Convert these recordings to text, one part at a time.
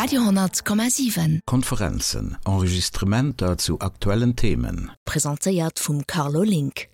Radio 10,7. Konferenzen, Enregistrementer zu aktuellen Themen. Presentéiert vum Carlo Link.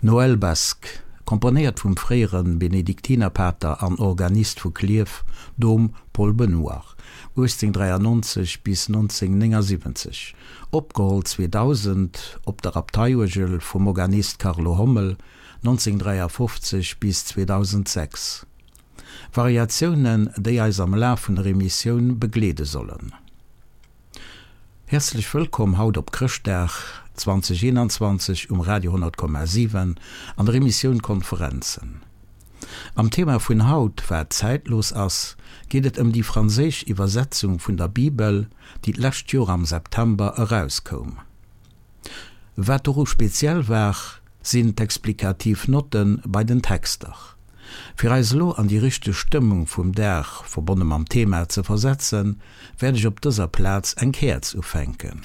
Noël Basque, komponéiert vum fréiere Benediktinerpater an Organist vu Klierf, Dom Paul Benoir, 1893 bis 1979, opgeholl 2000 op der Abteiuergel vum Organist Carlo Hommel, 1953 bis 2006. Variatiounen, déi eis am Laf vun der Emissioun begleede sollen. Häerzlech wëllkomm haut op Chrëschtdag 2021 um Radio 10,7 an der Emissioun Konferenzen. Am Thema vun haut, wat zäitlos ass, geet et ëm déi franséisch Iwwersetzung vun der Bibel, déi d'lescht Joer am September erauskoum. Wat doru speziell war, sinn d'explikativ Notte bei den Texter. Fir eis elo an déi richteg Stëmmung vum Dag, verbonne mam Thema, ze versetzen, wäert ech op dëser Plaz eng Käerz ufänken.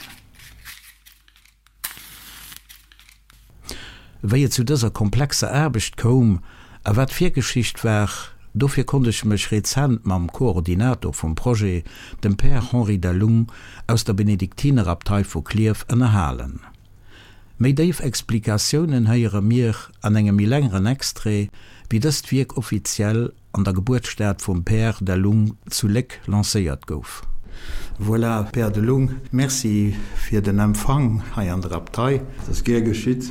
Wéi et zu dëser komplexer Aarbecht koum a wat d'Virgeschicht war, dofir konnt ech mech rezent mam Koordinator vum Projet, dem Père Henri Delung aus der Benediktinerabtei vu Klierf, ënnerhalen. Méi déif Explikatiounen héiere mir an engem méi längeren Extrait, wéi dëst Wierk offiziell an der Gebuertsstad vum Père Delung zu Léck lancéiert gouf. Voilà, Père Delung, Merci fir den Empfang hei an der Abtei. Dat ass gär geschitt.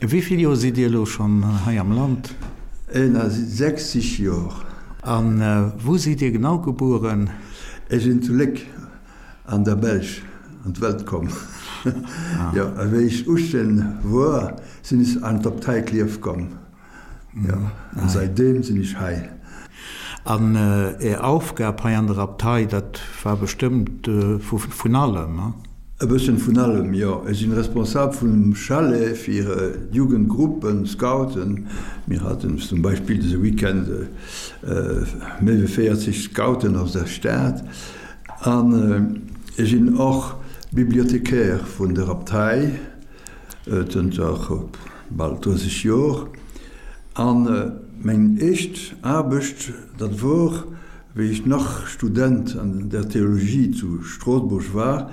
Wéi vill Joer sidd Dir elo schonn hei am Land? 61 Joer. A wou sidd Dir genau gebueren? Ech sinn zu Léck an der Belsch an d'Welt komm. Jo, a wéi ech 18 wor, sinn ech an d'Abtei Klierf komm. Jo, an säitdeem sinn ech hei. An Är Aufgab hei an der Abtei, dat war bestëmmt vun allem, he? E bësschen vun allem, jo. Ech sinn responsabel vum Chalet fir d'Jugendgruppen, Scouten. Mir haten zum Beispill dëse Weekend méi wéi 40 Scouten aus der Stad. An ech sinn och Bibliothécaire vun der Abtei. Zënter bal 30 Jor. An meng éischt Aarbecht, dat wor, wéi ech nach Student an der Theologie zu Stroossbuerg war.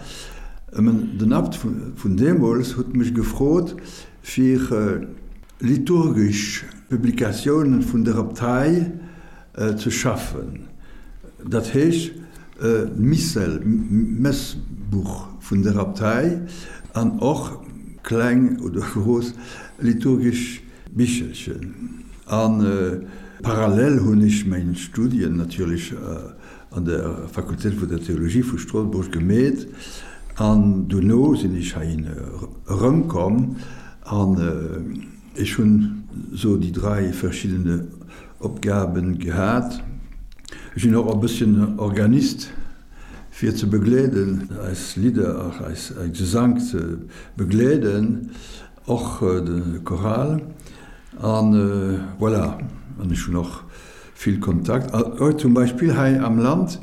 Den Abt vun deemools huet mech gefrot, fir liturgesch Publikatiounen vun der Abtei ze schaffen, dat heescht d'Missel, Messbuch vun der Abtei an och kleng oder grouss liturgesch Bichelchen. A parallel hunn ech meng Studien natierlech an der Fakultéit vun der Theologie vu Stroossbuerg gemeet an dono sinn ech heihin erëmkomm an ech hunn esou déi drai verschiddene Opgaben gehat. Ech sinn och e bësschen Organist fir ze begleeden, eis Lidder, eis Gesank ze begleeden, och de Choral an voilà. An ech hunn och vill Kontakt. Zum Beispill hei am Land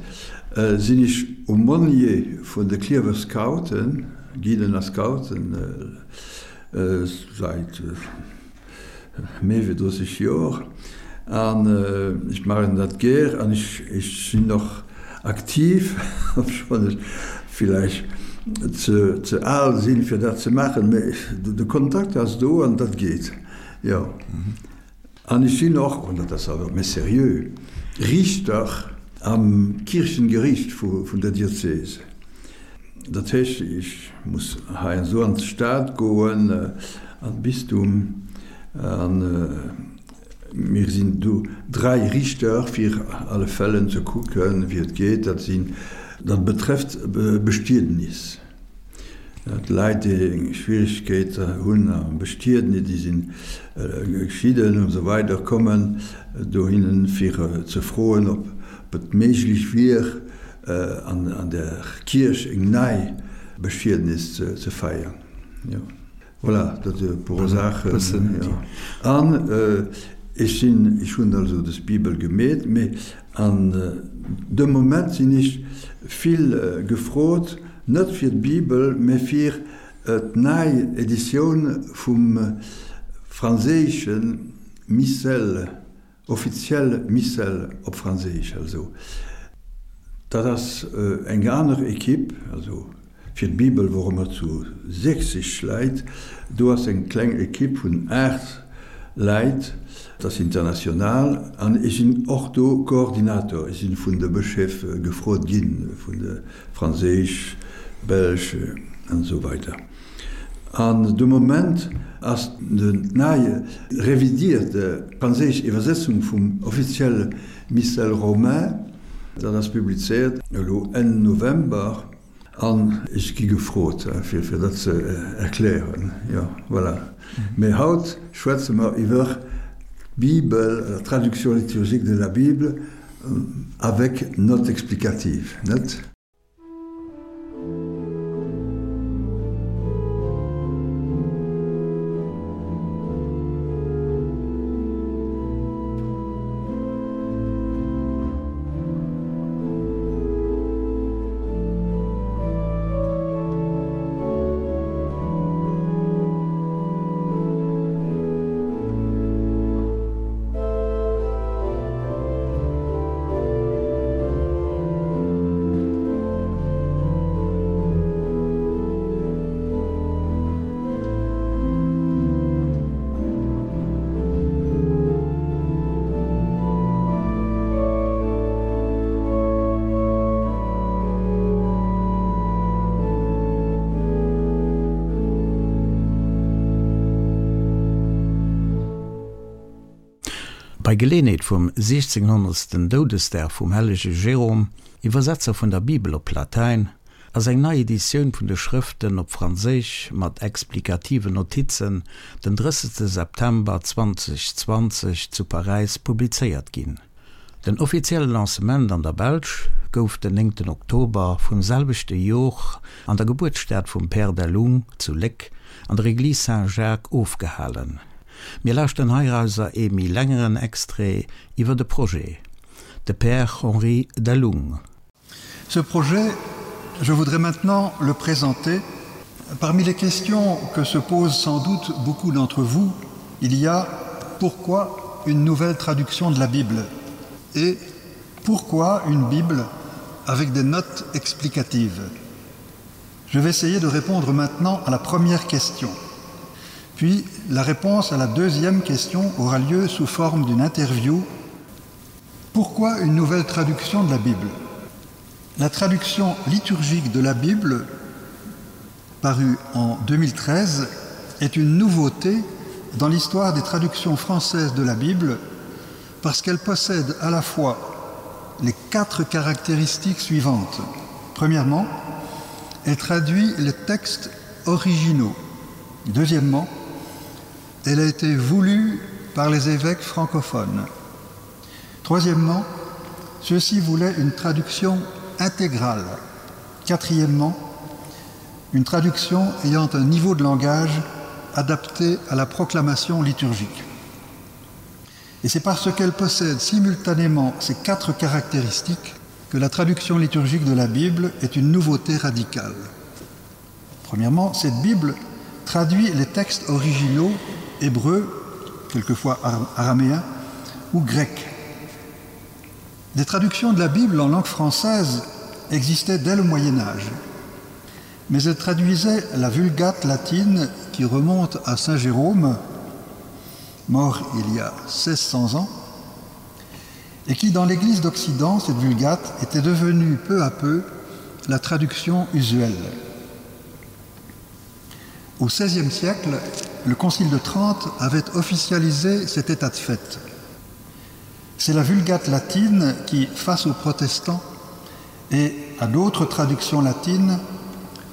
sinn ech Aumônier vun de Klierfer Scouten, Guiden a Scouten säit Méi wéi 30 Joer an ech maachen dat gär an ech sinn och aktiv, obschonn ech villäicht ze al sinn, fir dat ze maachen, mee de Kontakt ass do an dat geet. Jo. An ech sinn och, an dat ass awer méi seriö, Riichter am Kierchengeriicht vun der Diözese. Dat heescht, ech muss heiansdo an d'Stad goen, an d'Bistum, an mir sinn do dräi Riichter, fir alle Fällen ze kucken, wéi et geet. Dat sinn, dat betrëfft Bestiednis. D'Leit, déi eng Schwierigkeet hunn am Bestiednis, déi sinn geschidden und esou weider, kommen dohinnen, fir ze froen, ob et méiglech wier, an der Kierch eng nei Bestiednis ze feiern. Jo, voilà, dat e puer Saachen. An ech sinn, ech hunn also des Bibel gemeet, mee An de Moment sinn ech vill gefrot, net fir d'Bibel, mä fir d'nei Editioun vum franséische Missel, offiziell Missel op Franséisch. Also dat ass eng aner Equipe, also Fir d'Bibel wore mer zu 60 Läit. Do ass eng kleng Ekipp vun 8 Läit, dat ass international an ech sinn och do Koordinator. Ech sinn vun de Bëscheef gefrot ginn, vun de franséisch, belsch an esou weider. An de Moment ass d'nei revidierte franséisch Iwwersetzung vum offizielle Missel romain, dat ass publizéiert elo Enn November, An ech gi gefrot, fir dat ze erklären. Jo, voilà. Mee haut schwätze mer iwwer d'Bibel, la traduction liturgique de la Bible avec notes explicatives, net? Bei Geleeënheet vum 1600. Doudesdag vum hellege Jérôme, Iwwersetzer vun der Bibel op Latäin, ass eng nei Editioun vun de Schrëften op Franséisch mat explikativen Notizen den 30 September 2020 zu Paräis publizéiert ginn. Den offizielle Lancement an der Belsch gouf den 9 Oktober vum selwechte Jor an der Gebuertsstad vum Père Delhomme zu Léck an der Église Saint-Jacques ofgehalen. Mir lauschteren heirauser ee méi längeren Extrait iwwer de Projet, de Père Henri Delhomme. Ce projet, je voudrais maintenant le présenter. Parmi les questions que se posent sans doute beaucoup d'entre vous, il y a pourquoi une nouvelle traduction de la Bible et pourquoi une Bible avec des notes explicatives. Je vais essayer de répondre maintenant à la première question. Puis la réponse à la deuxième question aura lieu sous forme d'une interview Pourquoi une nouvelle traduction de la Bible La traduction liturgique de la Bible, parue en 2013, est une nouveauté dans l'histoire des traductions françaises de la Bible parce qu'elle possède à la fois les quatre caractéristiques suivantes. Premièrement, elle traduit les textes originaux. Deuxièmement, elle a été voulue par les évêques francophones. Troisièmement, ceux-ci voulaient une traduction intégrale. Quatrièmement, une traduction ayant un niveau de langage adapté à la proclamation liturgique. Et c'est parce qu'elle possède simultanément ces quatre caractéristiques que la traduction liturgique de la Bible est une nouveauté radicale. Premièrement, cette Bible traduit les textes originaux hébreux, quelquefois araméens ou grecs. Des traductions de la Bible en langue française existaient dès le Moyen Âge, mais elles traduisaient la Vulgate latine qui remonte à Saint Jérôme. mort il y a 1600 ans, et qui dans l'Église d'Occident, cette vulgate était devenue peu à peu la traduction usuelle. Au XVIe siècle, le Concile de Trente avait officialisé cet état de fait. C'est la vulgate latine qui, face aux protestants et à d'autres traductions latines,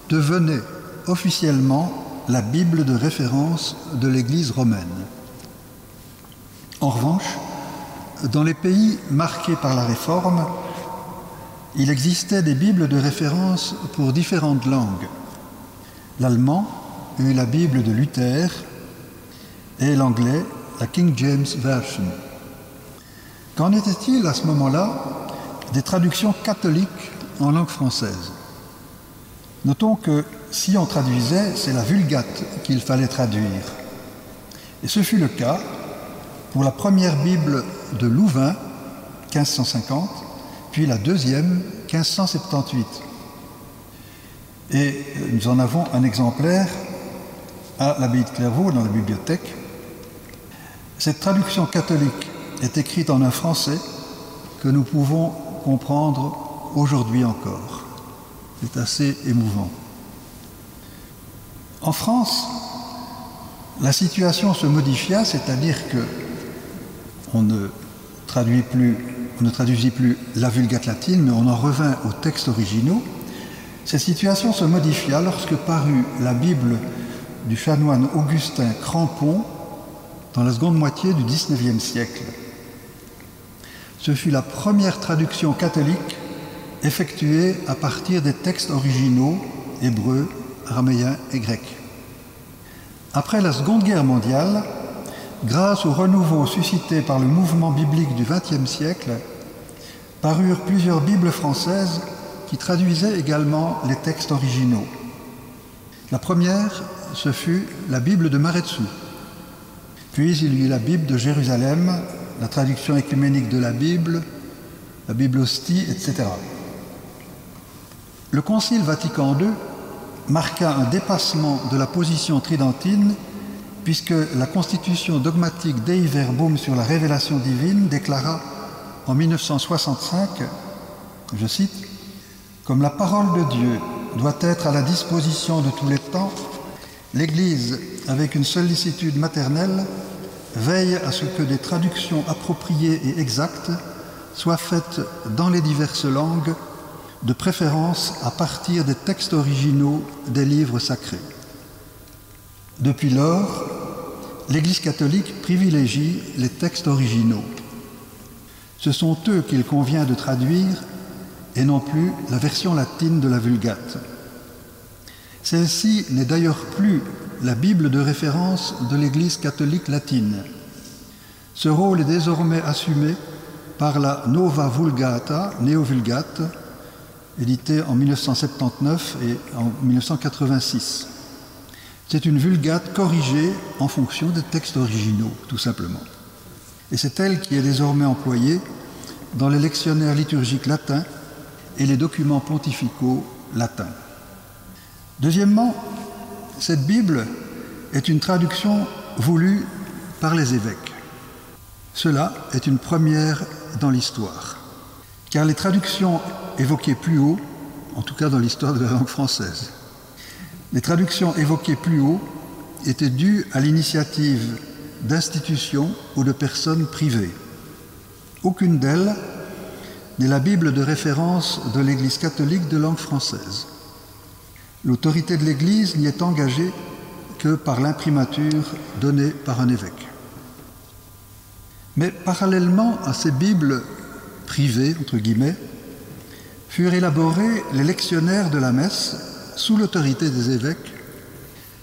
devenait officiellement la Bible de référence de l'Église romaine. En revanche, dans les pays marqués par la réforme, il existait des bibles de référence pour différentes langues. L'allemand eut la Bible de Luther et l'anglais la King James Version. Qu'en était-il à ce moment-là des traductions catholiques en langue française? Notons que si on traduisait, c'est la vulgate qu'il fallait traduire. Et ce fut le cas pour la première Bible de Louvain 1550, puis la deuxième 1578. Et nous en avons un exemplaire à l'abbaye de Clairvaux dans la bibliothèque. Cette traduction catholique est écrite en un français que nous pouvons comprendre aujourd'hui encore. C'est assez émouvant. En France, la situation se modifia, c'est-à-dire que on ne traduit plus on ne traduisit plus la vulgate latine, mais on en revint aux textes originaux. Cette situation se modifia lorsque parut la Bible du chanoine Augustin Crampon dans la seconde moitié du XIXe siècle. Ce fut la première traduction catholique effectuée à partir des textes originaux hébreux, araméens et grecs. Après la Seconde Guerre mondiale, grâce au renouveau suscité par le mouvement biblique du XXe siècle, parurent plusieurs bibles françaises qui traduisaient également les textes originaux. La première, ce fut la Bible de Maretzou. Puis il y eut la Bible de Jérusalem, la traduction écuménique de la Bible, la Bible hostie, etc. Le Concile Vatican II marqua un dépassement de la position tridentine puisque la constitution dogmatique Dei Verbum sur la révélation divine déclara en 1965, je cite, Comme la parole de Dieu doit être à la disposition de tous les temps, l'Église, avec une sollicitude maternelle, veille à ce que des traductions appropriées et exactes soient faites dans les diverses langues, de préférence à partir des textes originaux des livres sacrés. Depuis lors, l'Église catholique privilégie les textes originaux. Ce sont eux qu'il convient de traduire et non plus la version latine de la Vulgate. Celle-ci n'est d'ailleurs plus la Bible de référence de l'Église catholique latine. Ce rôle est désormais assumé par la Nova Vulgata, Néo-Vulgate, éditée en 1979 et en 1986. C'est une vulgate corrigée en fonction des textes originaux, tout simplement. Et c'est elle qui est désormais employée dans les lectionnaires liturgiques latins et les documents pontificaux latins. Deuxièmement, cette Bible est une traduction voulue par les évêques. Cela est une première dans l'histoire, car les traductions évoquées plus haut, en tout cas dans l'histoire de la langue française, les traductions évoquées plus haut étaient dues à l'initiative d'institutions ou de personnes privées. Aucune d'elles n'est la Bible de référence de l'Église catholique de langue française. L'autorité de l'Église n'y est engagée que par l'imprimature donnée par un évêque. Mais parallèlement à ces Bibles privées entre guillemets, furent élaborés les lectionnaires de la messe sous l'autorité des évêques,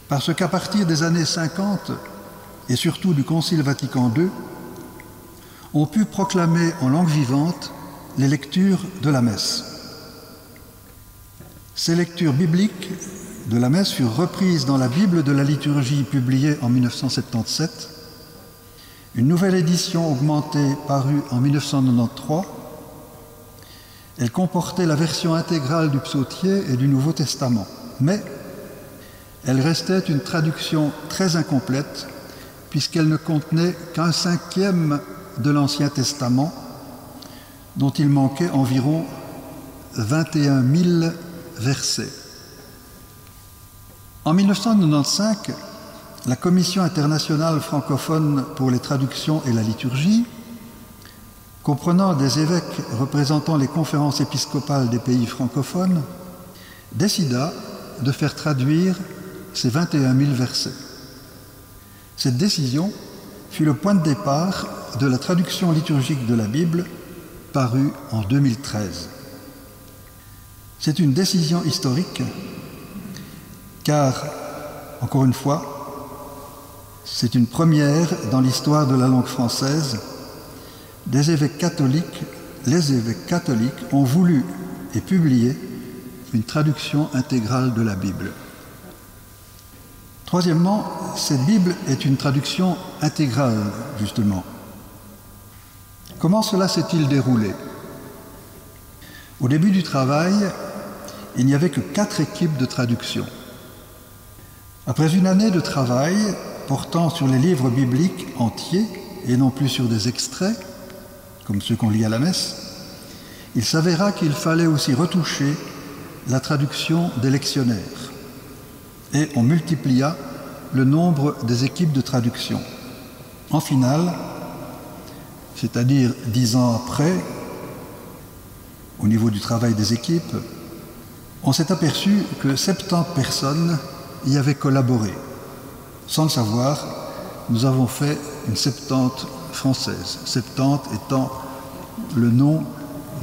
parce qu'à partir des années 50 et surtout du Concile Vatican II, on put proclamer en langue vivante les lectures de la messe. Ces lectures bibliques de la messe furent reprises dans la Bible de la liturgie publiée en 1977. Une nouvelle édition augmentée parut en 1993. Elle comportait la version intégrale du psautier et du Nouveau Testament, mais elle restait une traduction très incomplète. puisqu'elle ne contenait qu'un cinquième de l'Ancien Testament, dont il manquait environ 21 000 versets. En 1995, la Commission internationale francophone pour les traductions et la liturgie, comprenant des évêques représentant les conférences épiscopales des pays francophones, décida de faire traduire ces 21 000 versets. Cette décision fut le point de départ de la traduction liturgique de la Bible parue en 2013. C'est une décision historique car, encore une fois, c'est une première dans l'histoire de la langue française. Des évêques catholiques, les évêques catholiques ont voulu et publié une traduction intégrale de la Bible. Troisièmement, cette Bible est une traduction intégrale, justement. Comment cela s'est-il déroulé Au début du travail, il n'y avait que quatre équipes de traduction. Après une année de travail portant sur les livres bibliques entiers et non plus sur des extraits, comme ceux qu'on lit à la messe, il s'avéra qu'il fallait aussi retoucher la traduction des lectionnaires. Et on multiplia le nombre des équipes de traduction. En finale, c'est-à-dire dix ans après, au niveau du travail des équipes, on s'est aperçu que 70 personnes y avaient collaboré. Sans le savoir, nous avons fait une septante française, septante étant le nom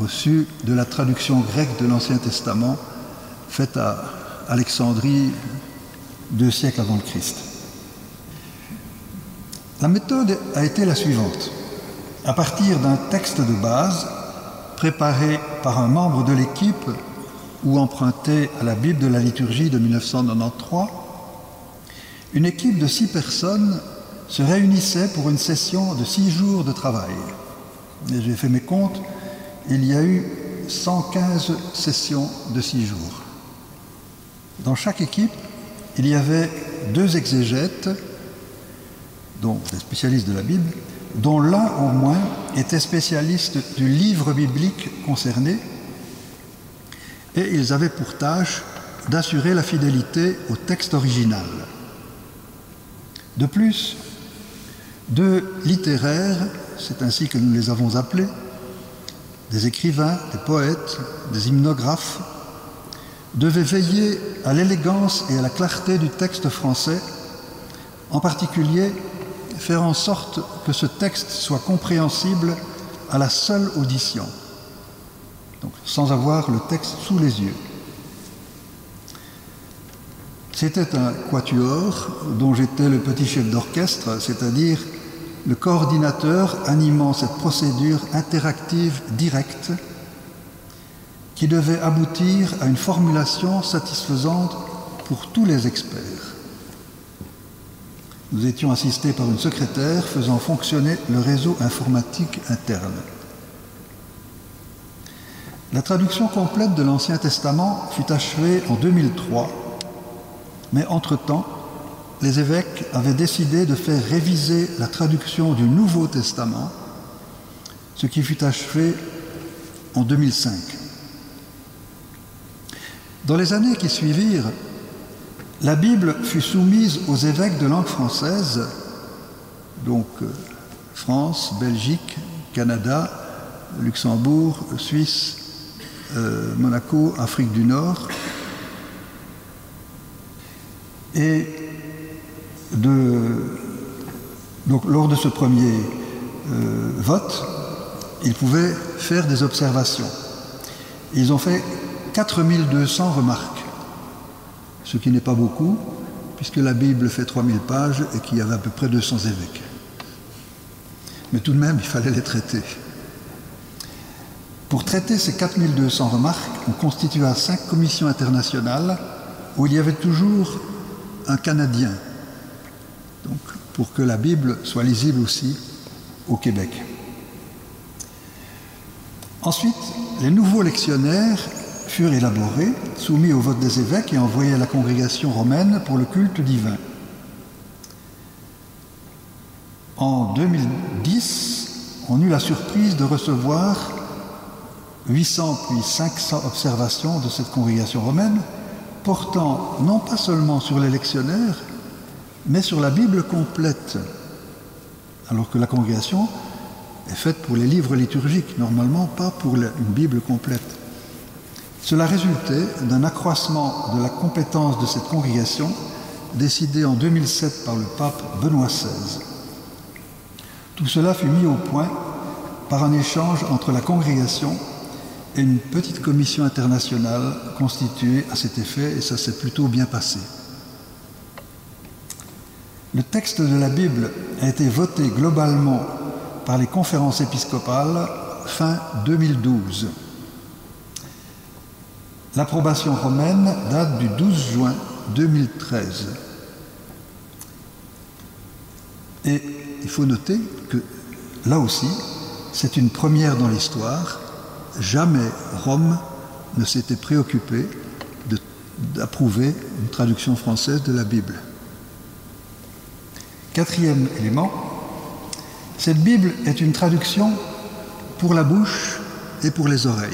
reçu de la traduction grecque de l'Ancien Testament faite à Alexandrie deux siècles avant le Christ. La méthode a été la suivante. À partir d'un texte de base préparé par un membre de l'équipe ou emprunté à la Bible de la liturgie de 1993, une équipe de six personnes se réunissait pour une session de six jours de travail. Et j'ai fait mes comptes, il y a eu 115 sessions de six jours. Dans chaque équipe, il y avait deux exégètes, dont des spécialistes de la Bible, dont l'un au moins était spécialiste du livre biblique concerné, et ils avaient pour tâche d'assurer la fidélité au texte original. De plus, deux littéraires, c'est ainsi que nous les avons appelés, des écrivains, des poètes, des hymnographes, devaient veiller à l'élégance et à la clarté du texte français, en particulier faire en sorte que ce texte soit compréhensible à la seule audition, donc sans avoir le texte sous les yeux. C'était un quatuor dont j'étais le petit chef d'orchestre, c'est-à-dire le coordinateur animant cette procédure interactive directe qui devait aboutir à une formulation satisfaisante pour tous les experts. Nous étions assistés par une secrétaire faisant fonctionner le réseau informatique interne. La traduction complète de l'Ancien Testament fut achevée en 2003, mais entre-temps, les évêques avaient décidé de faire réviser la traduction du Nouveau Testament, ce qui fut achevé en 2005. Dans les années qui suivirent, la Bible fut soumise aux évêques de langue française, donc euh, France, Belgique, Canada, Luxembourg, Suisse, euh, Monaco, Afrique du Nord. Et de, donc, lors de ce premier euh, vote, ils pouvaient faire des observations. Ils ont fait 4200 remarques, ce qui n'est pas beaucoup, puisque la Bible fait 3000 pages et qu'il y avait à peu près 200 évêques. Mais tout de même, il fallait les traiter. Pour traiter ces 4200 remarques, on constitua cinq commissions internationales où il y avait toujours un Canadien, donc pour que la Bible soit lisible aussi au Québec. Ensuite, les nouveaux lectionnaires furent élaborés, soumis au vote des évêques et envoyés à la congrégation romaine pour le culte divin. En 2010, on eut la surprise de recevoir 800 puis 500 observations de cette congrégation romaine portant non pas seulement sur les lectionnaires, mais sur la Bible complète, alors que la congrégation est faite pour les livres liturgiques, normalement pas pour une Bible complète. Cela résultait d'un accroissement de la compétence de cette congrégation décidée en 2007 par le pape Benoît XVI. Tout cela fut mis au point par un échange entre la congrégation et une petite commission internationale constituée à cet effet et ça s'est plutôt bien passé. Le texte de la Bible a été voté globalement par les conférences épiscopales fin 2012. L'approbation romaine date du 12 juin 2013. Et il faut noter que là aussi, c'est une première dans l'histoire, jamais Rome ne s'était préoccupé d'approuver une traduction française de la Bible. Quatrième élément, cette Bible est une traduction pour la bouche et pour les oreilles.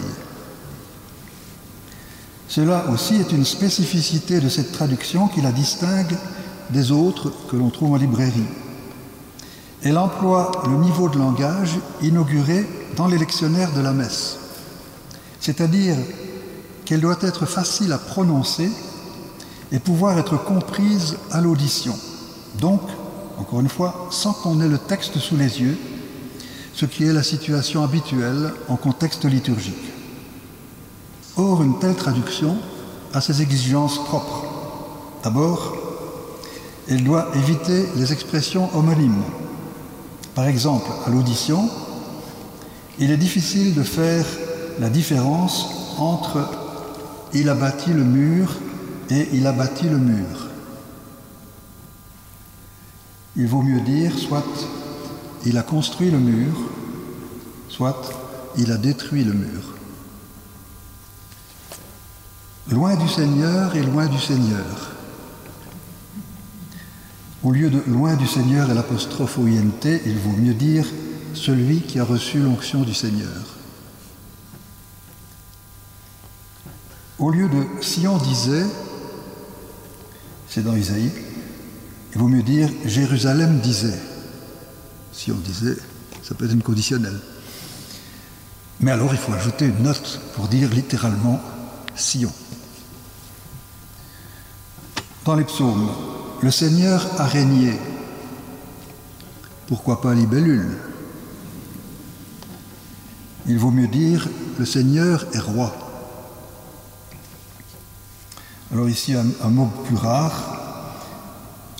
Cela aussi est une spécificité de cette traduction qui la distingue des autres que l'on trouve en librairie. Elle emploie le niveau de langage inauguré dans les lectionnaires de la messe, c'est-à-dire qu'elle doit être facile à prononcer et pouvoir être comprise à l'audition. Donc, encore une fois, sans qu'on ait le texte sous les yeux, ce qui est la situation habituelle en contexte liturgique. Or, une telle traduction a ses exigences propres. D'abord, elle doit éviter les expressions homonymes. Par exemple, à l'audition, il est difficile de faire la différence entre il a bâti le mur et il a bâti le mur. Il vaut mieux dire soit il a construit le mur, soit il a détruit le mur. Loin du Seigneur et loin du Seigneur. Au lieu de loin du Seigneur et l'apostrophe OINT, il vaut mieux dire celui qui a reçu l'onction du Seigneur. Au lieu de Sion disait, c'est dans Isaïe, il vaut mieux dire Jérusalem disait. Si on disait, ça peut être une conditionnelle. Mais alors il faut ajouter une note pour dire littéralement Sion. Dans les psaumes, le Seigneur a régné. Pourquoi pas libellule Il vaut mieux dire le Seigneur est roi. Alors ici un, un mot plus rare.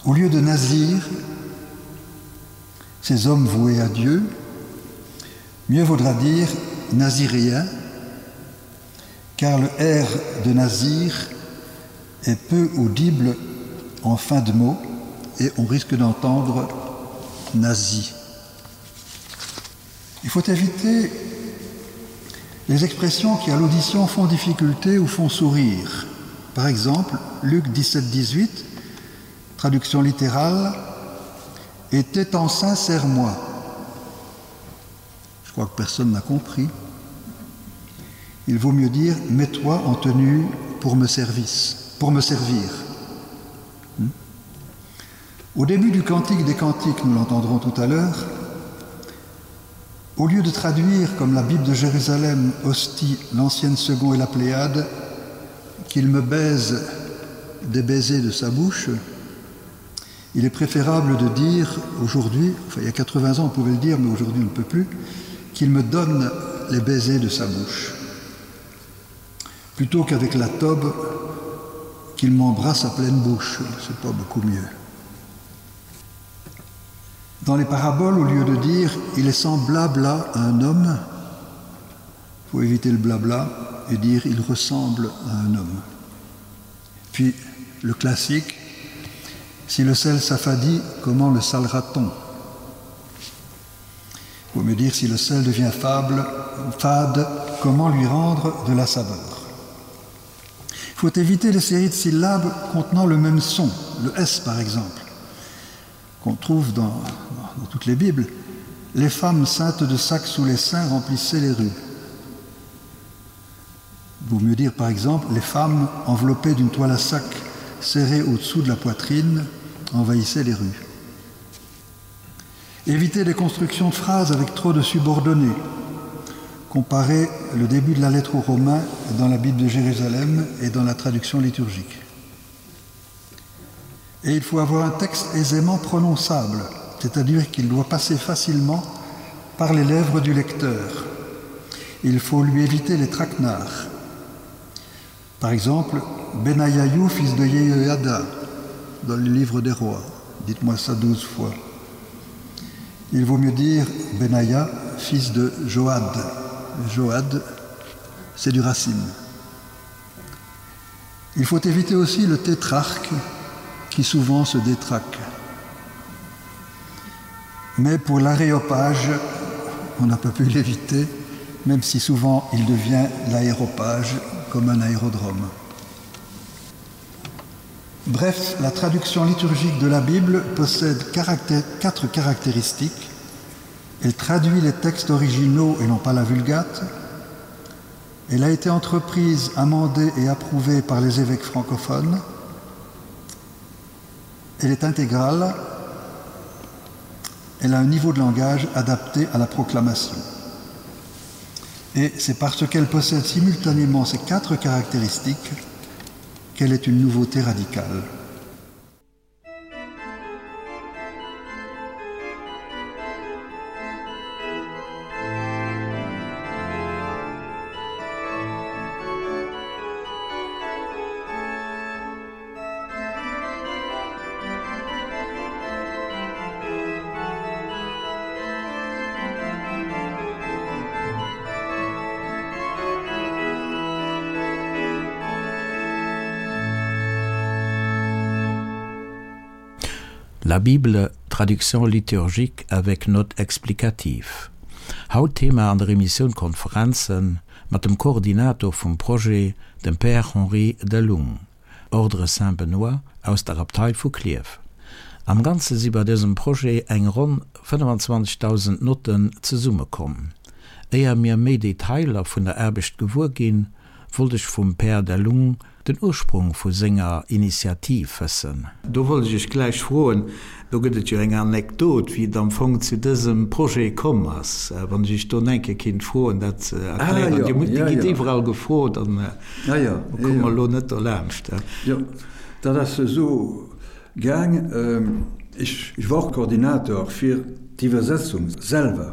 Au lieu de Nazir, ces hommes voués à Dieu, mieux vaudra dire naziréen, car le R de Nazir est peu audible en fin de mot et on risque d'entendre nazi. Il faut éviter les expressions qui à l'audition font difficulté ou font sourire. Par exemple, Luc 17 18, traduction littérale, était en sincère moi. Je crois que personne n'a compris. Il vaut mieux dire mets-toi en tenue pour me service, pour me servir. Hmm? Au début du cantique des cantiques, nous l'entendrons tout à l'heure, au lieu de traduire comme la Bible de Jérusalem hostie l'ancienne second et la Pléiade, qu'il me baise des baisers de sa bouche, il est préférable de dire aujourd'hui, enfin il y a 80 ans on pouvait le dire, mais aujourd'hui on ne peut plus, qu'il me donne les baisers de sa bouche. Plutôt qu'avec la tobe, qu'il m'embrasse à pleine bouche, c'est pas beaucoup mieux. Dans les paraboles, au lieu de dire il est semblable à un homme, il faut éviter le blabla et dire il ressemble à un homme. Puis le classique, si le sel s'affadit, comment le salera-t-on Il faut me dire si le sel devient fable, fade, comment lui rendre de la saveur. Il faut éviter les séries de syllabes contenant le même son, le S par exemple. Qu'on trouve dans, dans toutes les Bibles, les femmes saintes de sac sous les seins remplissaient les rues. Vaut mieux dire par exemple les femmes enveloppées d'une toile à sac serrée au-dessous de la poitrine envahissaient les rues. Éviter les constructions de phrases avec trop de subordonnées. Comparer le début de la lettre aux Romains dans la Bible de Jérusalem et dans la traduction liturgique. Et il faut avoir un texte aisément prononçable, c'est-à-dire qu'il doit passer facilement par les lèvres du lecteur. Il faut lui éviter les traquenards. Par exemple, Benayayou, fils de Yehoiada, dans le livre des rois. Dites-moi ça 12 fois. Il vaut mieux dire Benaya, fils de Joad. Joad, c'est du racine. Il faut éviter aussi le tétrarque qui souvent se détraque. Mais pour l'aréopage, on n'a pas pu l'éviter, même si souvent il devient l'aéropage comme un aérodrome. Bref, la traduction liturgique de la Bible possède caractère, quatre caractéristiques. Elle traduit les textes originaux et non pas la vulgate. Elle a été entreprise, amendée et approuvée par les évêques francophones. Elle est intégrale. Elle a un niveau de langage adapté à la proclamation. Et c'est parce qu'elle possède simultanément ces quatre caractéristiques qu'elle est une nouveauté radicale. La Bible, traduction liturgique avec notes explicatives. Haut Thema an der Emissioun Konferenzen mat dem Koordinator vum Projet, dem Père Henri Delung, Ordre Saint-Benoît aus der Abtei vu Klierf. Am Ganze si bei dësem Projet eng ronn 25.000 Notten zesummekomm. Éier mir méi Detailer vun der Aarbecht gewuer ginn, wollt ech vum Père Delung den Ursprung vu senger Initiativ wëssen. Do wollt ech Iech gläich froen, do gëtt et jo eng Anekdot, wéi et am Fong zu dësem Projet komm ass. Wann ech Iech do eng Kéier kinnt froen, dat ze erklären. Dir musst, Dir gitt iwwerall gefrot an do komme mer elo net dolaanscht. Jo, dat ass esou gaang, ech war och Koordinator fir d'Iwwersetzung selwer,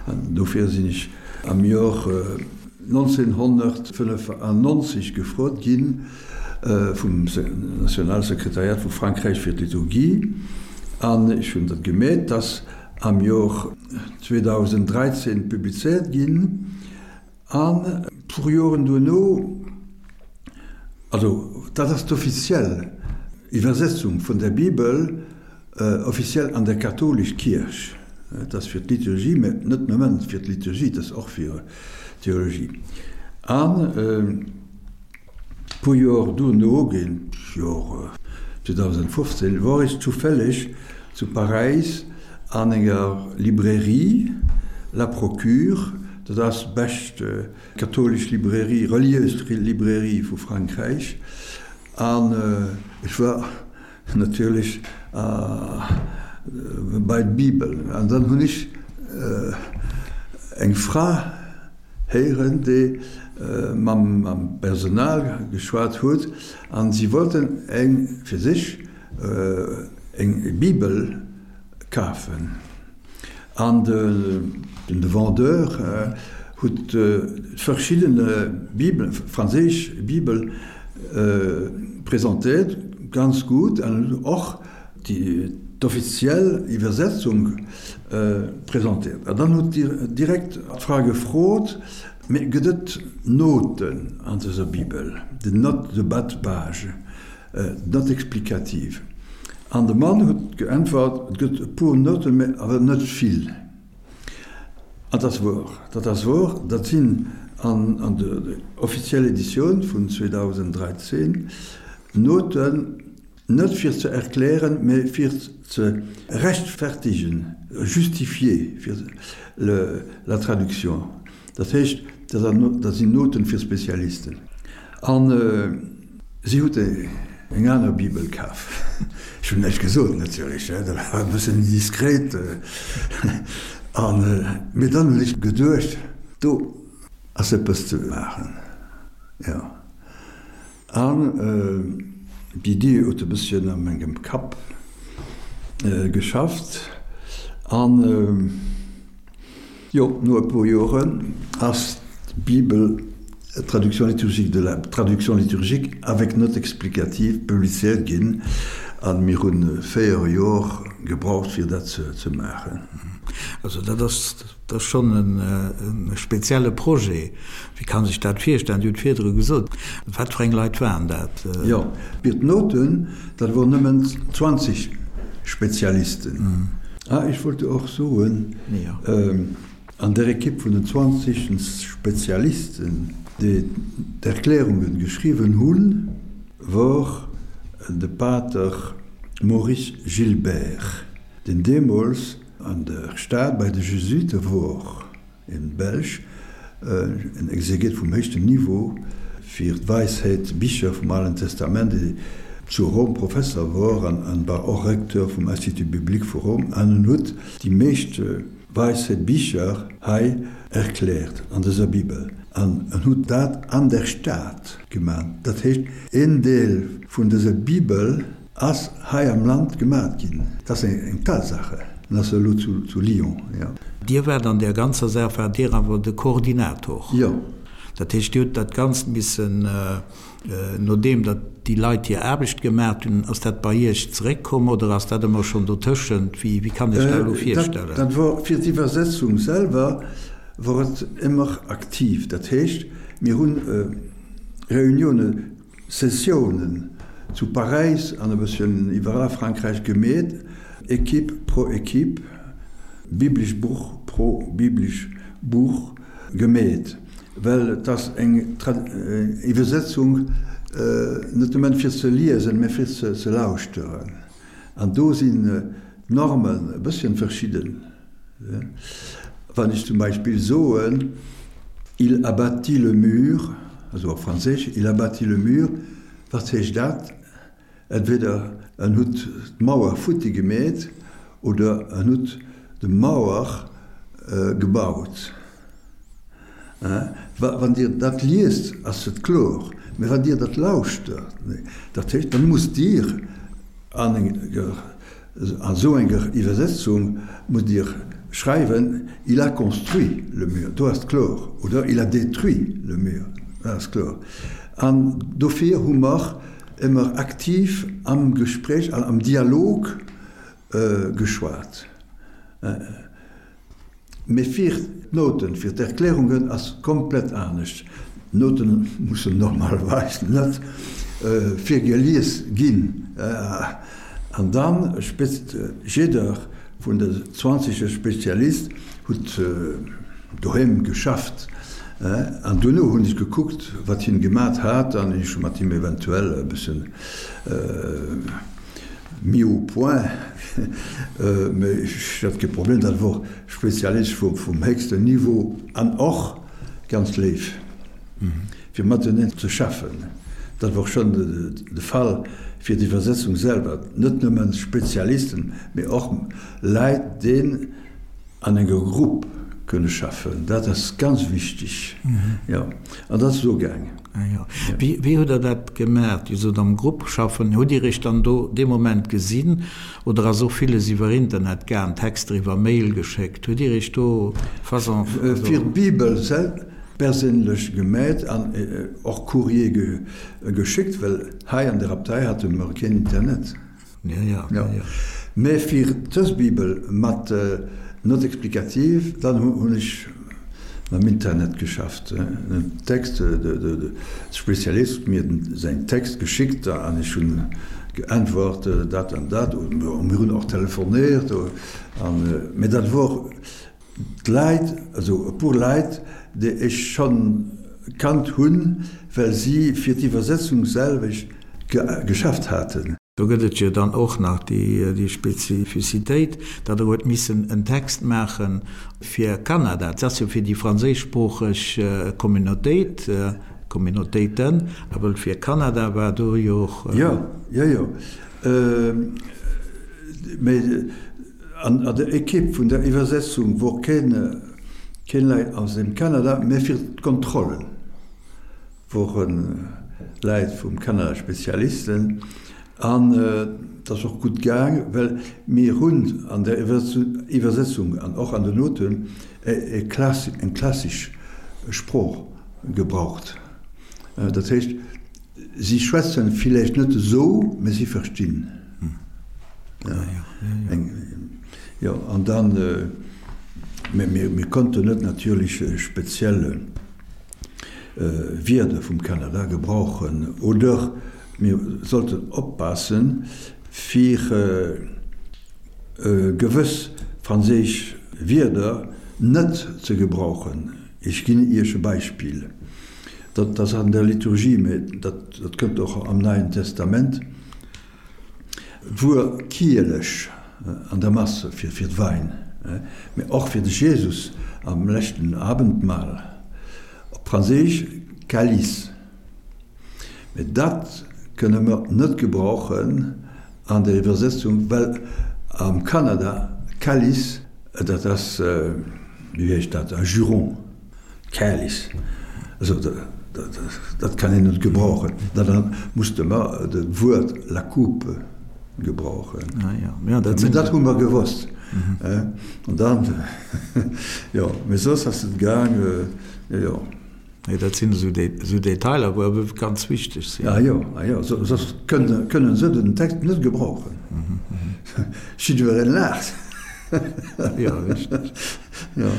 an dofir sinn ech am Jor 1995 gefrot gi vum Nationalsekretariat vu Frankräich fir d'Liturgie, an ech hunn dat gemeet, dass am Jor 2013 publizéiert ginn, an e puer Joren duerno, also dat ass d'offiziell Iwwersetzung vun der Bibel, Offiziell an der katholisch Kierch. Et ass fir d'Liturgie, mä net nëmmen fir d'Liturgie, et ass och fir d'Theologie. An e puer Joer duerno, géint d'Jor 2015, wor ech zufälleg zu Paräis an enger Librairie, La Procure, dat ass d'bescht katholisch Librairie, relieus Librairie vu Frankräich, an ech war Natierlech bei d'Bibel. An dann hunn ech eng Fra héieren, déi mam Personal geschwat huet, an si wollten eng fir sech eng Bibel kafen. An de Vendeur huet verschidden Bibelen, franséisch Bibel presentéiert, ganz gutt, an och d'offiziell Iwwersetzung presentéiert. An dann huet direkt d'Fra gefrot, Mee gëtt et Noten an dëser Bibel, des notes de bas de page? Note explicative. An de Mann huet geäntwert, Et gëtt e puer Notten, mä awer net vill. An dat ass wouer. Dat ass wouer. Dat sinn an der offizieller Editioun vun 2013 Noten. Net fir ze erklären, mä fir ze rechtfertigen, justifier fir la traduction. Dat heescht, dat sinn Noten fir Spezialisten. An si huet eng aner Bibel kaf. Ech hunn näischt gesot natierlech, dat war e bëssen indiskret. An, mee dann hunn ech geduecht, do ass eppes ze maachen, jo. An d'Iddi huet e bësschen a mengem Kapp geschafft. An jo, no e puer Joren ass d'Bibel Traduction liturgique de la Traduction liturgique avec notes explicatives publizéiert ginn. A mir hu 4 Jor gebraucht, fir dat ze maachen. Also dat ass Dat ass schonn e spezielle Projet. Wéi kann sech dat virstellen? Dir hutt virdru gesot, wat fir eng Leit waren dat? Jo, fir d'Noten, dat wor nëmmen 20 Spezialisten. Ah, ech wollt och soen, an der Ekipp vun den 20 Spezialisten, déi d'Erklärungen geschriwwen hunn, wor de Pater Maurice Gilbert, deen deemools An der Stad bei de Jesuite wor en Belsch, en Exeget vum héichten Niveau fir d'Weisheet, Bicher vum Alen Testament, dee zu Rom Professer wor an war och Recteur vum Institut biblique vu Rom an en huet déi meescht Weisheet Bicher hei erkläert an dëser Bibel an en huet dat an der Stad geman. Dat heescht een Deel vun dëser Bibel Ass hei am Land gemat ginn. Dat ass eng Tatsache. En ass elo zu Lyon, jo. Dir waart an där ganzer Saach, waart Dir awer de Koordinator? Jo. Dat heescht, Dir hutt dat Ganzt missen, nodeem datt déi Leit hir Aarbecht gemat hunn, ass dat bei Iech zeréckkomm oder ass dat ëmmer schonn dotëschent? Wéi, wéi kann ech dat elo virstellen? Dat wor, fir d'Iwwersetzung selwer wor et ëmmer aktiv. Dat heescht, mir hunn Reunioune Sessiounen zu Paräis an e bësschen iwwerall a Frankräich gemeet, Equipe pro Equipe, biblesch Buch pro biblesch Buch gemeet, well et ass eng Iwwersetzung net nëmmen fir ze liesen, mä fir ze lauschteren. An do sinn d'Normen e bësschen verschidden. Wann ech zum Beispill soen, Il abattit le mur, also op Franséisch, Il abattit le mur, wat heescht dat? Entweder en hutt d'Mauer futti gemeet oder en hutt de Mauer gebaut. Wann Dir dat liest, ass et kloer, mä wann Dir dat lauschtert, dat heescht, dann musst Dir an enger, an esou enger Iwwersetzung musst Dir schreiwen, Il a construit le mur, do ass et kloer, oder Il a détruit le mur, dat ass kloer. An dofir hu mer ëmmer aktiv am Gespréich an am Dialog geschwat. Mee fir d'Nouten, fir d'Erklärungen ass komplett anescht. D'Noten mussen normalerweis net virgelies ginn. An dann jidder vun de 20 Spezialist huet doheem geschafft. An duerno hunn ech gekuckt, wat hien gemat hat, an ech hu mat him eventuell e bëssen Mis au point, mee ech hat kee Problem, dat wor Spezialist vum héchsten Niveau an och ganz léif fir mateneen ze schaffen. Dat wor schonn de Fall fir d'Iwwersetzung selwer, net nëmmen Spezialisten, mee och Leit déi an enger Grupp kënne schaffen, dat ass ganz wichteg, jo, an dat ass esou gaangen. Ah jo. Wéi, wéi hutt Der dat gemaach? Dir sot am Grupp schaffen. Hutt Dir Iech dann do dee Moment gesinn oder ass och villes iwwer Internet gaang, Texter iwwer Mail geschéckt? Hutt Dir Iech do façon, also. Fir d'Bibel sel perséinlech gemeet an och Courrier geschéckt, well hei an der Abtei hate mer keen Internet. Ja, ja, ja, ja. Mä fir dës Bibel mat Note explicative, dann hunn ech mam Internet geschafft. Den Text, de Spezialist huet mir säin Text geschickt an ech hunn geäntwert, dat an dat. Mir hunn och telefonéiert. Mä dat wor d'Leit, also e puer Leit, déi ech schonn kannt hunn, well si fir d'Iwwersetzung selwecht geschafft haten. Do gëtt et jo dann och nach déi Spezifizitéit, datt Der huet missen en Text maache fir Kanada. Dat ass jo fir déi franséischsproocheg Communautéit, Communautéiten, awer fir Kanada war do jo och. Jo, jo, jo. Mee an der Equipe vun der Iwwersetzung wor keen, keen Leit aus dem Kanada, mä fir d'Kontrollen. Wore Läit vum Kanada, Spezialisten, an et ass och gutt gaang, well mir hunn an der Iwwersetzung an och an den Noten eng klassesch Sprooch gebraucht. Dat heescht, si schwätzen villäicht net esou, mä si verstinn. Jo, an dann, mä mir konnten net natierlech speziell. Wierder vum Kanada gebrauchen oder mir sollten oppassen, fir gewëss franséisch Wierder net ze gebrauchen. Ech ginn Iech e Beispill, dat ass an der Liturgie, mä dat kënnt och am Neien Testament. D'Wuer Kielech an der Mass fir d'Wein, mee och fir de Jesus am leschten Abendmahl, op Franséisch calice. Mee dat kënne mer net gebrauchen an der Iwwersetzung, well am Kanada calice, dat ass, wéi heescht dat, e Juron. Calice, also dat kann een net gebrauchen. Da musste mer dat Wuert la coupe gebrauchen. Mä dat hu mer gewosst. An dann, jo, mä soss ass et gaang, jo. Nee, dat sinn esou Detailer, wou awer ganz wichteg sinn. Ah jo, ah jo, soss kënnen se den Text net gebrauchen. Jiddwereen laacht. Jo, richteg. Jo.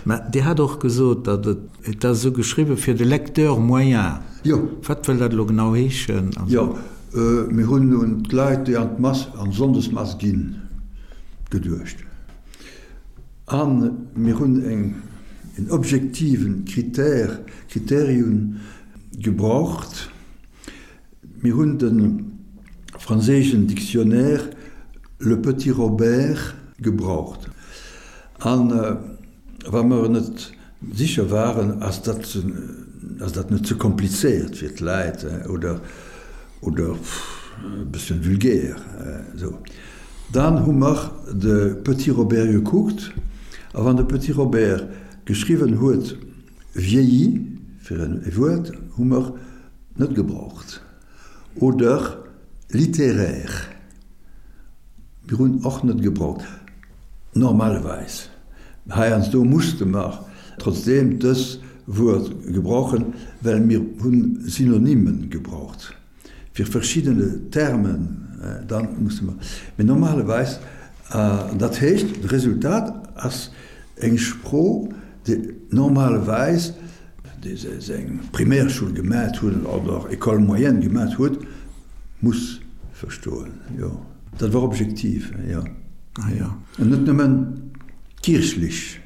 Mä Dir hat och gesot, datt et, et ass esou geschriwwen, fir de Lecteur moyen. Jo. Wat wëll dat elo genau heeschen? Jo, mir hunn un d'Leit, déi an d'Mass, an d'Sonndesmass ginn, geduecht. A mir hunn eng, en objektiven Critère, Kriterium gebraucht. Mir hunn de franséischen Dictionnaire Le Petit Robert gebraucht. A wa mer net sécher waren, ass dat, ass dat net ze komplizéiert fir d'Leit oder, oder e bësschen vulgär esou, dann hu mer de Petit Robert gekuckt. A wann de Petit Robert geschriwwen huet vieilli fir e Wuert, hu mer net gebraucht. Oder littéraire, mir hunn och net gebraucht, normalerweis. Heiansdo musste mer trotzdeem dës Wuert gebrauchen, well mir hunn Synonymen gebraucht fir verschiddene Termen, dann musse mer, mee normalerweis, dat heescht, de Resultat ass eng Sprooch, déi normalerweis, dee seng Primärschoul gemat huet oder École moyenne gemat huet, muss verstoen, jo. Dat war objektiv, jo. Ah jo. An net nëmmen kierchlech.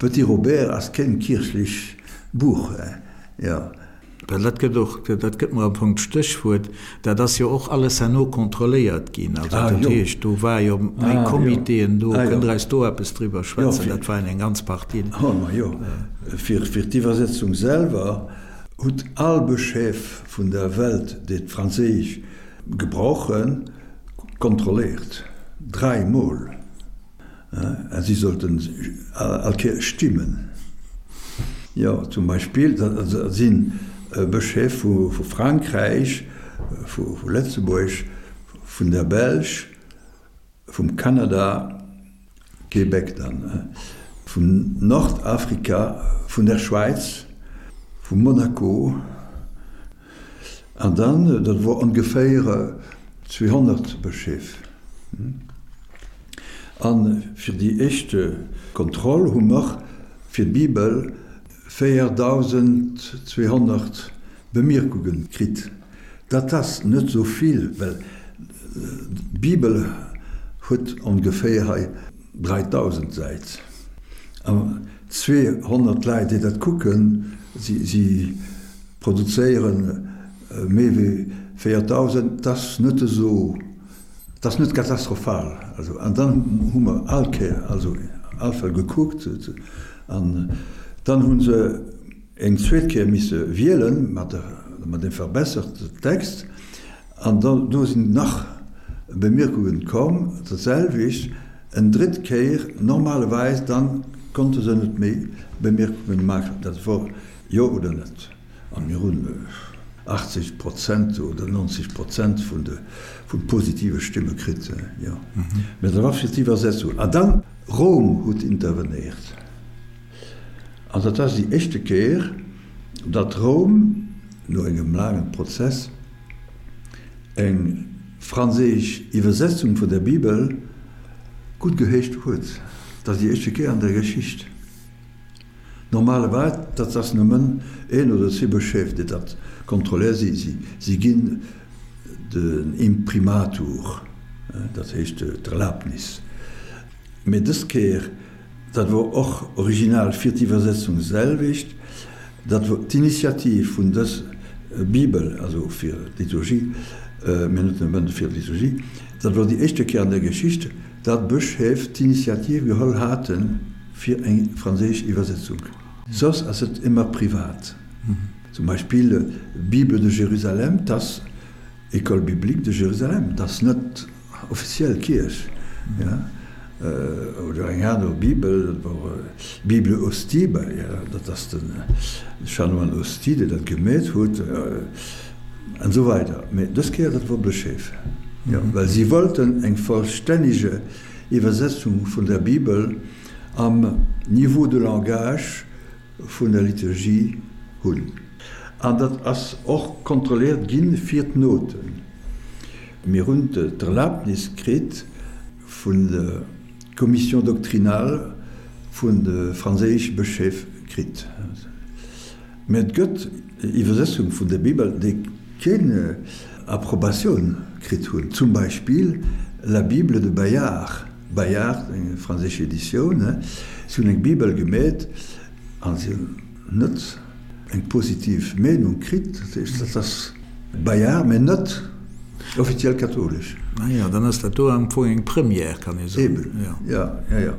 Petit Robert ass keen kierchlech Buch, jo. Well dat gëtt och, dat gëtt mer am Fong d'Stéchwuert, dat ass jo och alles herno kontrolléiert ginn. Also dat heescht, do war jo méi Comitéen do. Kënnt Der eis do eppes driwwer schwätzen? Dat waren eng ganz Partie. Oh, ma jo. Fir d'Iwwersetzung selwer hutt all Bëscheef vun der Welt, déi d'Franséisch gebrauchen, kontrolléiert. Dräimol. A si sollten all Kéier stimmen. Jo, zum Beispill, dat si Bëscheef vu Frankräich, vu Lëtzebuerg, vun der Belsch, vum Kanada, Québec dann, vun Nordafrika, vun der Schwäiz, vu Monaco. An dann, dat wor ongeféier 200 Bëscheef. A fir déi éischt Kontroll hu mer fir d'Bibel 4.200 Bemierkunge kritt. Dat ass net esou vill, well d'Bibel huet ongeféier hei 3.000 Säit. An 200 Leit, déi dat kucken, si produzéiere méi wéi 4.000, dat ass net esou. Et ass net katastrophal. Also, an dann hu mer all Kéier, also all Fall gekuckt an dann hu se eng zweet Kéier misse wielen mat der, mat deem verbesserte Text an da do sinn nach Bemierkungen komm, dat selwecht eng drëtt Kéier. Normalerweis dann konnte se net méi Bemierkungen maachen, dat wor jo oder net. A mir hunn 80 Prozent oder 90 Prozent vun de vu positive Stimme kritt, jo. Mä dat war fir d'Iwwersetzung. A dann, Roum huet intervenéiert. An dat ass déi éischte Kéier, datt Roum no engem laangen Prozess eng franséisch Iwwersetzung vun der Bibel guttgeheescht huet. Dat ass déi éischte Kéier an der Geschicht. Normalerweis, dat ass nëmmen een oder zwee Bëscheef, déi dat kontrolléieren. Si, si ginn den Imprimatur, dat heescht d'Erlaabnis. Mee dës Kéier, dat wor och original fir d'Iwwersetzung selwecht, dat wor d'Initiativ vun dës Bibel, also fir d'Liturgie, mee net nëmmen fir d'Liturgie, dat wor déi éischte Kéier an der Geschicht, datt Bëscheef d'Initiativ geholl haten, Fir eng franséisch Iwwersetzung. Soss ass et ëmmer privat. Zum Beispill Bible de Jérusalem, 't ass École biblique de Jérusalem, 't ass net offiziell Kierch. Oder eng aner Bibel, dat wor Bible Ostie, dat ass de Chanoine Ostie, dee dat gemeet huet, an esou weider. Mee dës Kéier, dat wor Bëscheef, well si wollten eng vollstännege Iwwersetzung vun der Bibel am Niveau de langage vun der Liturgie hunn. An dat ass och kontrolléiert gi fir d'Noten. Mir hunn d'Erlaabnis kritt vun der Commission doctrinale vun de franséische Bëscheef kritt. Mä et gëtt Iwwersetzung vun der Bibel, déi keen Approbatioun kritt hunn, zum Beispill La Bible de Bayard, Bayard, eng franséisch Editioun, si hunn eng Bibel gemeet a si hunn net eng positiv Meenung kritt. Dat heescht, dat ass Bayard, mä net offiziell kathoulesch. Ah jo, dann ass dat do am Fong eng Première, kann ee soen. Eben, jo, jo, jo.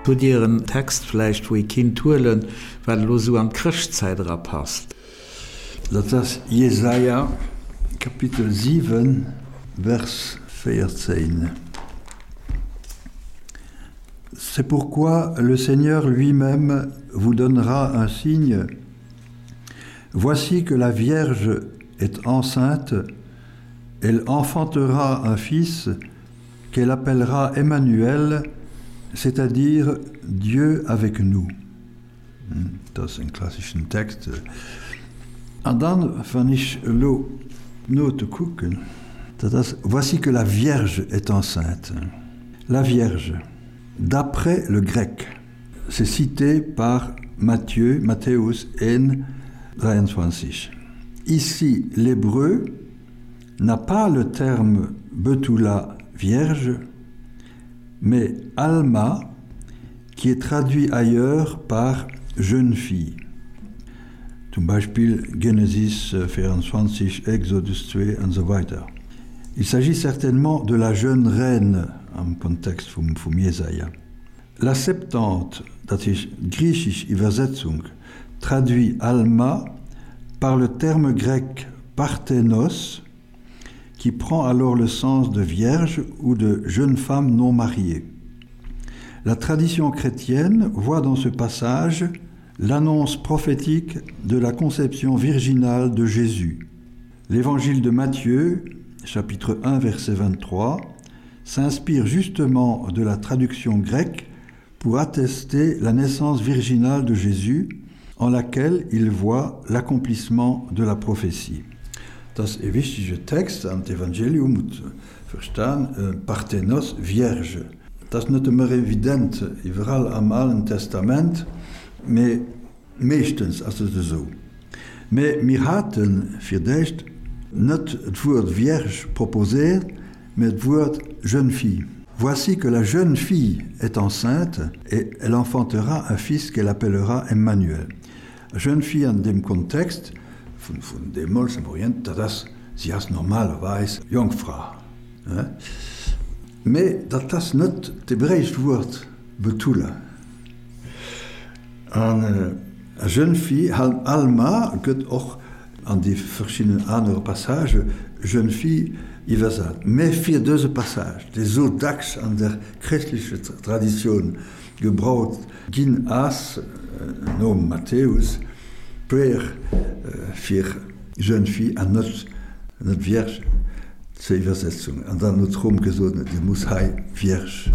Hutt Dir en Text vläicht, wou ee kinnt huelen, wat elo esou an d'Chrëschtzäit erapasst? Dat ass Jesaja Kapitel 7, Vers 14. C'est pourquoi le Seigneur lui-même vous donnera un signe. Voici que la Vierge est enceinte, elle enfantera un fils qu'elle appellera Emmanuel, c'est-à-dire Dieu avec nous. Dat ass en klasseschen Text. An dann, wann ech elo d'Note kucken, dat ass, Voici que la Vierge est enceinte. La Vierge, d'après le grec, c'est cité par Matthieu, Matthäus 1, 23. Ici, l'hébreu n'a pas le terme Betula vierge, mais Alma, qui est traduit ailleurs par jeune fille. Zum Beispill Genesis 24, Exodus 2 an esou weider. Il s'agit certainement de la jeune reine am Kontext vum vum Jesaja. La Septante, dat heescht d'griichesch Iwwersetzung, traduit Alma par le terme grec parthenos, qui prend alors le sens de vierge ou de jeune femme non mariée. La tradition chrétienne voit dans ce passage l'annonce prophétique de la conception virginale de Jésus. L'Évangile de Matthieu, chapitre 1 verset 23, s'inspire justement de la traduction grecque pour attester la naissance virginale de Jésus, en laquelle il voit l'accomplissement de la prophétie. Dat ass e wichtege Text an d'Evangelium huet verstan, Parthenos, Vierge. Dat ass net ëmmer evident iwwerall am Alen Testament, mee meeschtens ass et esou. Mee mir hate fir d'éischt net d'Wuert Vierge proposéiert, mee d'Wuert jeune fille. Voici que la jeune fille est enceinte et elle enfantera un fils qu'elle appellera Emmanuel. Jeune fille an deem Kontext vun deemools am Orient, dat ass, si ass normalerweis Jongfra. Mee dat ass net d'hebräescht Wuert Betula. An jeune fille, Alma, gëtt och an déi verschidden anere Passagë jeune fille iwwersat. Mä fir dëse Passage, dee sou dacks an der chrëschtlecher Traditioun gebraucht ginn ass, nom Matthäus, puer fir jeune fille an net net vierge zur Iwwersetzung. An dann huet Rom gesot, Dir musst hei vierge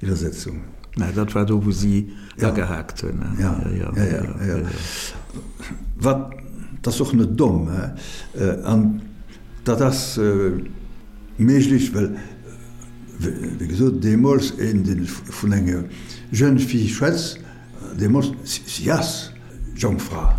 Iwwersetzung. Mä dat war do, wou si agehaakt hunn. Ja, ja, ja, ja. Wat, dat ass och net domm, hè. An dat ass méiglech, well, wéi gesot, deemools een, dee vun enger jeune fille schwätzt, deemools, si ass Jongfra.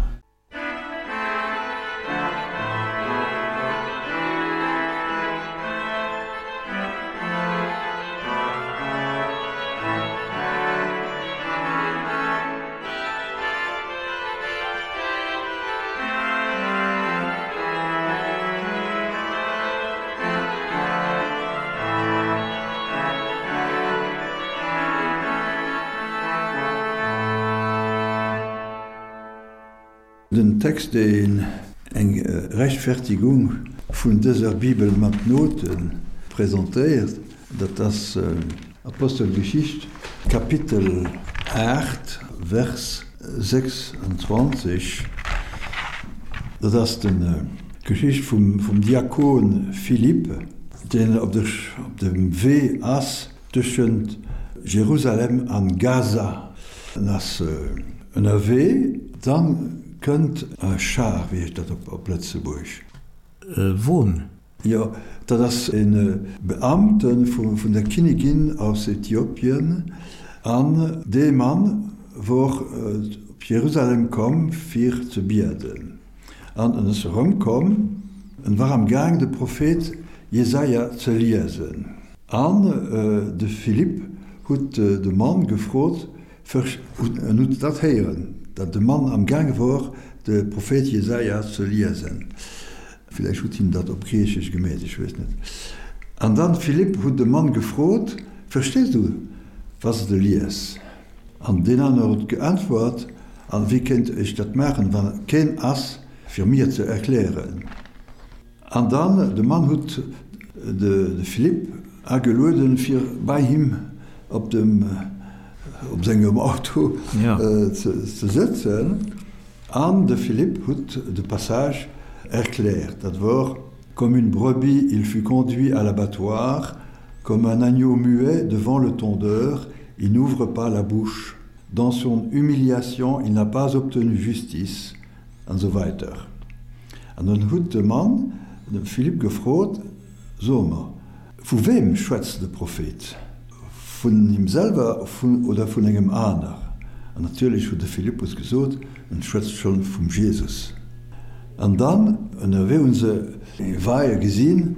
Den Text, deen eng Rechtfertigung vun dëser Bibel mat Note presentéiert, dat ass Apostelgeschicht, Kapitel 8, Vers 26. Dat ass d'Geschicht vum Diakon Philippe, deen op dem Wee ass tëschent Jerusalem an Gaza. En ass ënnerwee, dann kënnt e Char, wéi heescht dat op Lëtzebuerg? E Won. Jo, dat ass e Beamte vun der Kinnigin aus Äthiopien, an dee Mann wor op Jerusalem komm fir ze bieden. An en ass erëmkomm, en war am Gaang de Prophet Jesaja ze liesen. An de Philippe huet de Mann gefrot, En huet dat héieren, datt de Mann am gaange wor, de Prophet Jesaja ze liesen. Villäicht huet hien dat op Griichesch gemeet, ech weess net. An dann Philippe huet de Mann gefrot, Verstees du, wat s de lies? An deen aner huet geäntwert, An wéi kéint ech dat maachen, wa keen ass, fir mir ze erklären? An dann, de Mann hutt de Philippe agelueden, fir bei him op dem, op sengem Auto ze sëtzen. An de Philippe hutt de Passage erkläert. Dat wor, Comme une brebis, il fut conduit à l'abattoir, comme un agneau muet devant le tondeur, il n'ouvre pas la bouche. Dans son humiliation, il n'a pas obtenu justice. An esou weider. An dann huet de Mann de Philippe gefrot, So mer, vu weem schwätzt de Prophet? Vun him selwer oder vun engem aner? An natierlech huet de Philippus gesot, En schwätzt schonn vum Jesus. An dann ënnerwee hunn se e Weie gesinn,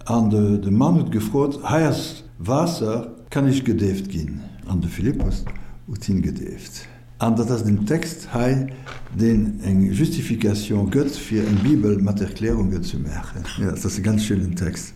an de Mann huet gefrot, Hei ass Waasser, kann ech gedeeft ginn? An de Philippus huet hien gedeeft. An dat ass den Text hei, deen eng Justification gëtt, fir eng Bibel mat Erklärungen ze maachen. Jo, dat ass e ganz schéinen Text.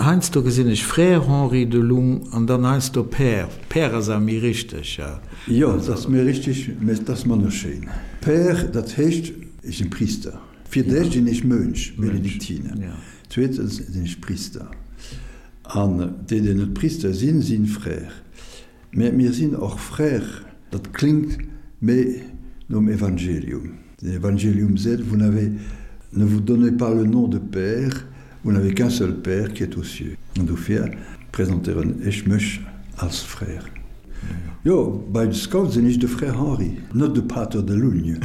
Heiansdo gesinn ech Frère Henri Delung an dann heiansdo Père. Père ass awer méi richteg, jo? Jo, dat ass méi richteg, mä et ass manner schéin. Père, dat heescht, ech sinn Priister. Fir d'éischt sinn ech Mönch, Benediktiner. Zweetens sinn ech Priister. An déi, déi net Priister sinn, sinn Frère. Mä mir sinn och Frère, dat klingt méi nom Evangelium. Den Evangelium seet, Vous n'avez, ne vous donnez pas le nom de père, vous n'avez qu'un seul père qui est aux cieux. An dofir presentéieren ech mech als Frère. Jo, bei de Scouts sinn ech de Frère Henri, net de Pater de Lugne.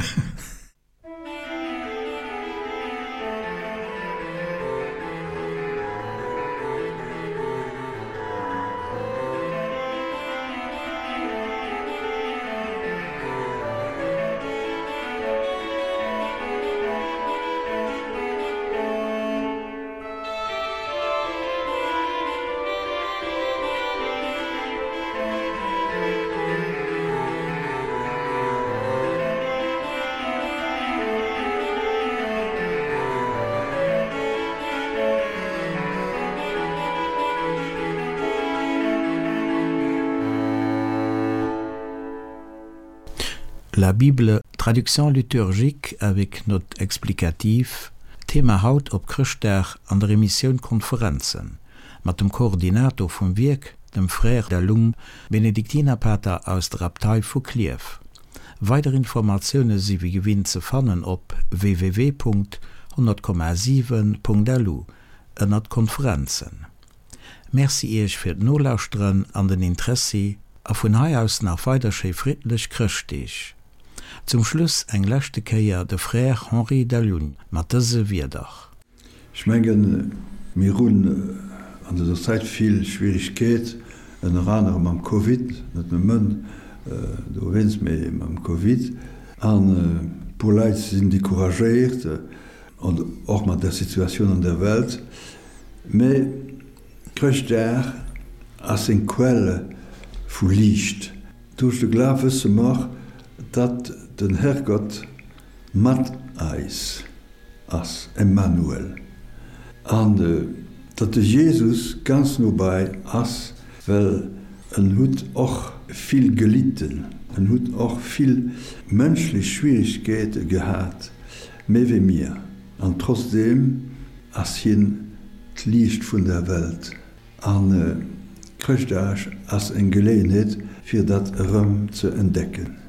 La Bible, traduction liturgique avec notes explicatives, Thema haut op Chrëschtdag an der Emissioun Konferenzen mat dem Koordinator vum Wierk, dem Frère Delung, Benediktinerpater aus der Abtei vu Klierf. Weider Informatioune si wéi gewinnt ze fannen op www.100,7.lu ënnert Konferenzen. Merci Iech fir d'Nolauschteren an den Interessi a vun hei aus nach weider schéi friddlech Chrëschtdeeg. Zum Schluss eng leschte Kéier de Frère Henri Delune mat dëse Wierder. Ech mengen, mir hunn an dëser Zäit vill Schwierigkeet, ënner anerem mam Covid, net nëmmen dowéinst, mee mam Covid. An e puer Leit sinn decouragéiert, an och mat der Situatioun an der Welt. Mee Chrëschtdag ass eng Quelle vu Liicht. Duerch de Glaf wësse mer, datt den Herrgott mat eis ass, Emmanuel, an datt de Jesus ganz nobei ass, well en hutt och vill gelitten, en hutt och vill mënschlech Schwierigkeete gehat, méi wéi mir, an trotzdeem ass hien d'Liicht vun der Welt. An Chrëschtdag ass eng Geleeënheet, fir dat erëm ze entdecken.